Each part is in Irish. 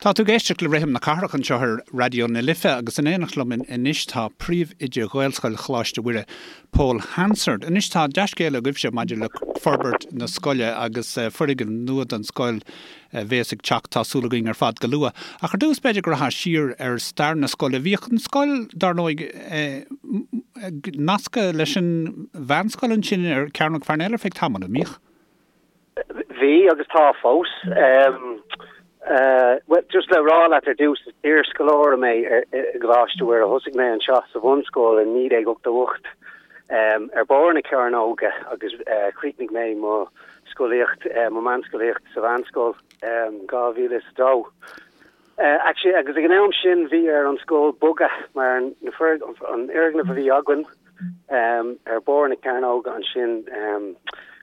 Tá tú ag éisteacht le Rithim na Cathrach anseo ar Raidió na Life agus in éineacht liom anois tá Príomhoide Ghaelscoil Choláiste Mhuire, Pól Hansard. Anois tá dea-scéala agaibhse maidir le forbairt na scoile agus foirgneamh nua don scoil a bhéas ag teacht, tá súil againn ar fad, go luath. Ach ar dtús b'fhéidir go rachfá siar ar stair na scoile. Bhíodh an scoil, dar ndóigh, nasctha leis an mheánscoil ansin ar Chearnóg Pharnell ar feadh tamaill, an mbíodh? Bhí agus tá fós. Bhuel, just le rá leat ar dtús, is iarscoláire mé i gColáiste Mhuire. Thosaigh mé anseo sa bhunscoil i 1988 ar barr na cearnóige agus chríochnaigh mé mo scolaíocht, mo mheánscolaíocht sa mheánscoil 2002. Actually, agus ag an am sin bhí ar an scoil bogadh mar an fhoirgneamh a bhí againn ar barr na cearnóige ansin,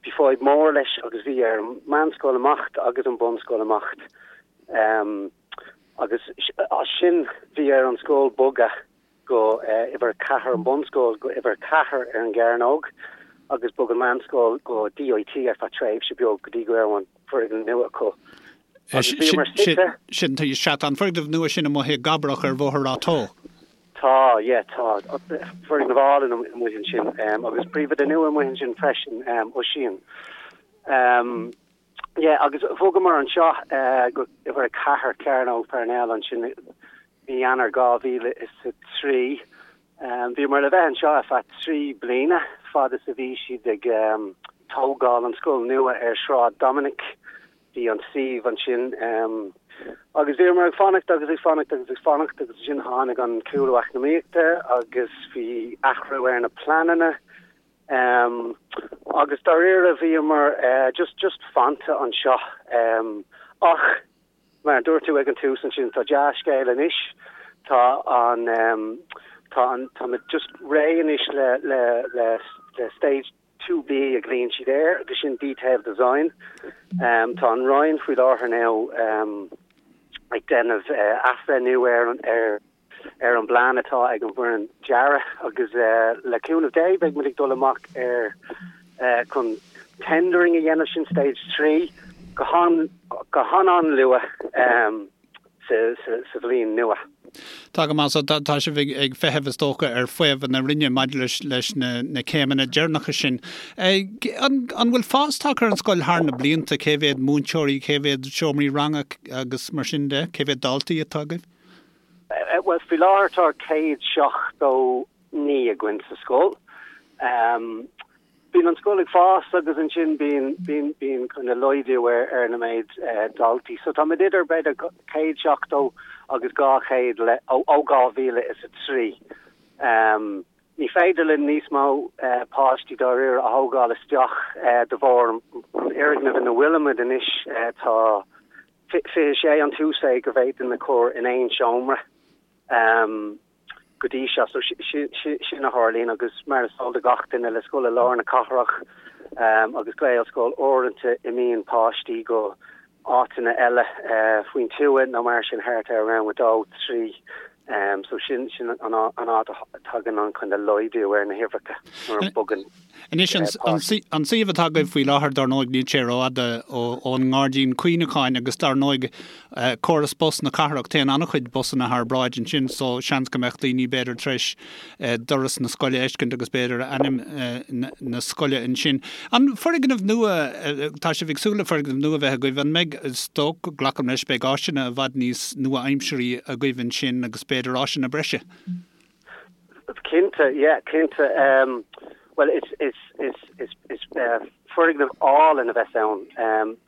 bhí fadhb mór leis agus bhí ar an meánscoil imeacht agus an bunscoil imeacht. Agus as sin bhí ar an scoil bogadh go uimhir 4, an bunscoil go uimhir 4 ar an gcearnóg agus bhog an meánscoil go DIT ar feadh tréimhse beag go dtí go raibh an foirgneamh nua acu. Agus bhíomar suite. Sin, sea, tá an foirgneamh nua sin amuigh i gCabrach ar Bhóthar Ráth Tó. Tá, yeah, tá. Foirgneamh álainn amuigh ansin agus príomhoide nua amuigh ansin freisin, Oisín. Yeah, agus bhogamar anseo go uimhir 4 Cearnóg Pharnell ansin i mí Eanáir 2003. Bhíomar le bheith anseo ar feadh 3 bliana, fad is a bhí siad ag tógáil an scoil nua ar Shráid Dominic. Bhí an suíomh ansin agus bhíomar ag fanacht agus ag fanacht agus ag fanacht agus ansin tháinig an cúlú eacnamaíochta agus bhí athrú ar na pleananna. Agus dáiríre bhíomar just just fanta anseo. Ach mar a dúirt tú ag an tús ansin tá dea-scéal anois, tá an tá an táimid just réidh anois le le le le stage 2B a ghlaonn siad air agus sin detailed design. Tá an Roinn faoi láthair now ag déanamh athbhreithniú ar an ar ar an bplean atá ag an bhfoireann dearaidh agus le cúnamh Dé beidh muid ag dul amach ar chun tendering a dhéanamh, sin stage 3, go han-an-luath sa bhliain nua. Tá go maith, so tá sibh ag feitheamh is dócha ar fhaomhadh na Roinne maidir leis leis na céimeanna deireanacha sin. An bhfuil fás tagtha ar an scoil thar na blianta? Cé mhéad múinteoirí, cé mhéad seomraí ranga agus mar sin de? Cé mhéad daltaí atá agaibh? Bhuel, faoi láthair tá 179 againn sa scoil. Bíonn an scoil ag fás agus ansin bíonn, bíonn, bíonn kind of laghdú ar, ar na méid daltaí. So táimid idir b'fhéidir 170 agus 200 le, ó, ó 2003. Ní féidir linn níos mó páistí dáiríre a thógáil isteach de bharr an fhoirgnimh ina bhfuilimid anois. Tá 26 an t-uasmhéid go bhféadfainn a chur in aon seomra go dtí seo. So sin a tharlaíonn agus mar is eol do gach duine le scoil i lár na cathrach agus Gaelscoil uaireanta imíonn páistí go áiteanna eile faoin tuath nó mar sin thart ar rang a dó, trí. So sin sin an áit a dtagann an kind of laghdú ar na huimhreacha nuair a bogann Anois, an suíomh atá agaibh faoi láthair, dar ndóigh, níl sé rófhada ón nGairdín Cuimhneacháin agus dar ndóigh, córas bus na cathrach, téann an-chuid busanna thar bráid ansin so seans go mbeadh daoine b'fhéidir tar éis doras na scoile a fheiscint agus b'fhéidir ainm na scoile ansin. An foirgneamh nua, tá sibh ag súil le foirgneamh nua a bheith agaibh, an mbeidh, is dócha, glacaim leis, beidh áiseanna i bhfad níos nua-aimseartha agaibh ansin agus b'fhéidir áiseanna breise? Cinnte, yeah, cinnte. Bhuel, is, is, is, is, is foirgneamh álainn a bheas ann.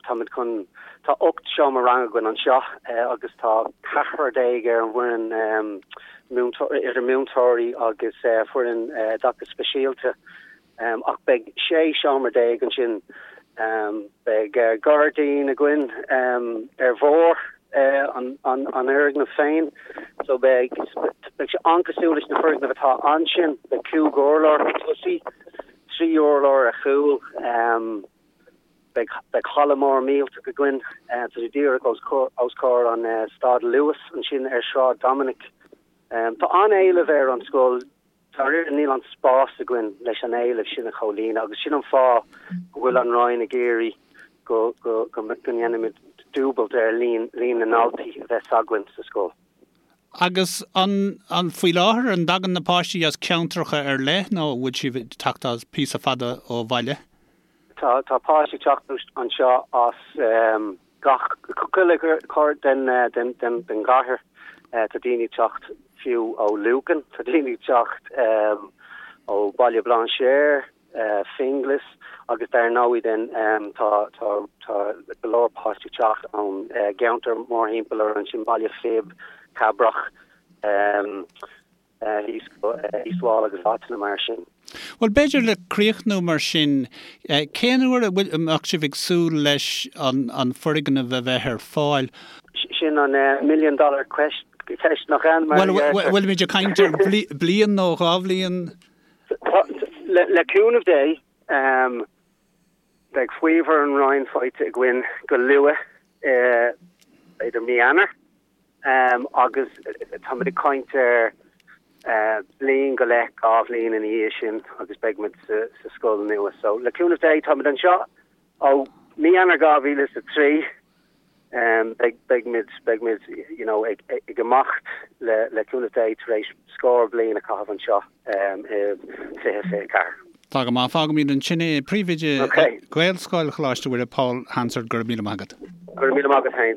Táimid chun, tá 18 seomra ranga againn anseo agus tá ceathrar ar an bhfoireann múinteoir, idir múinteoirí agus foireann oideachais speisialta. Ach beidh 16 seomra ansin. Beidh gairdín againn ar bharr an fhoirgnimh féin. So beidh beidh sé an-cosúil leis na foirgnimh atá ansin. Beidh cúig urlár chun tosaigh, trí urlár ar chúl. Beidh beidh halla mór millteach againn. Tá sé díreach os comhair an stad Luas ansin ar Shráid Dominic. Tá an-éileamh ar an scoil. Dáiríre níl an spás againn leis an éileamh sin a chomhlíonadh agus sin an fáth go bhfuil an Roinn ag iarraidh go go go ndéanfaimid. dúbailt ar líon líon na ndaltaí a bheas againn sa scoil. Agus an, an, faoi láthair, an dtagann na páistí as ceantracha ar leith nó an bhfuil siad ag teacht as píosa fada ó bhaile? Tá, tá páistí ag teacht anseo as gach, chuile chor den, den, den, den gcathair. Tá daoine ag teacht fiú ó Lucan, tá daoine ag teacht ó Baile Bhlainséir, Finglas agus dar ndóigh then tá tá tá go leor páistí ag teacht ón gceantar mórthimpeall orainn sin Baile Phib, Cabrach, thíos go East Wall agus áiteanna mar sin. Bhuel b'fhéidir le críochnú mar sin, cén uair a bhfuil, a mbeadh sibh ag súil leis an an foirgneamh a bheith ar fáil? Sin an million dollar ceist nach ea? Mar a deirtear. Bhuel, bhfuilimid ag caint ar bliain nó dhá bhliain? Le cúnamh Dé, beidh faomhadh ón Roinn faighte againn go luath, b'fhéidir mí Eanáir, agus táimid ag caint ar bliain go leith, 2 bhliain ina dhiaidh sin agus beidh muid sa scoil nua. So, le cúnamh Dé, táimid anseo ó mí Eanáir 2003. Beidh, beidh muid, beidh muid, you know, ag, ag imeacht le, le cúnamh Dé tar éis scór bliain a chaitheamh anseo i 2024. Tá go maith. Fágfaimid ansin é. Príomhoide Ghaelscoil Choláiste Mhuire, Paul Hansard, go raibh míle maith agat. Go raibh míle maith agat féin.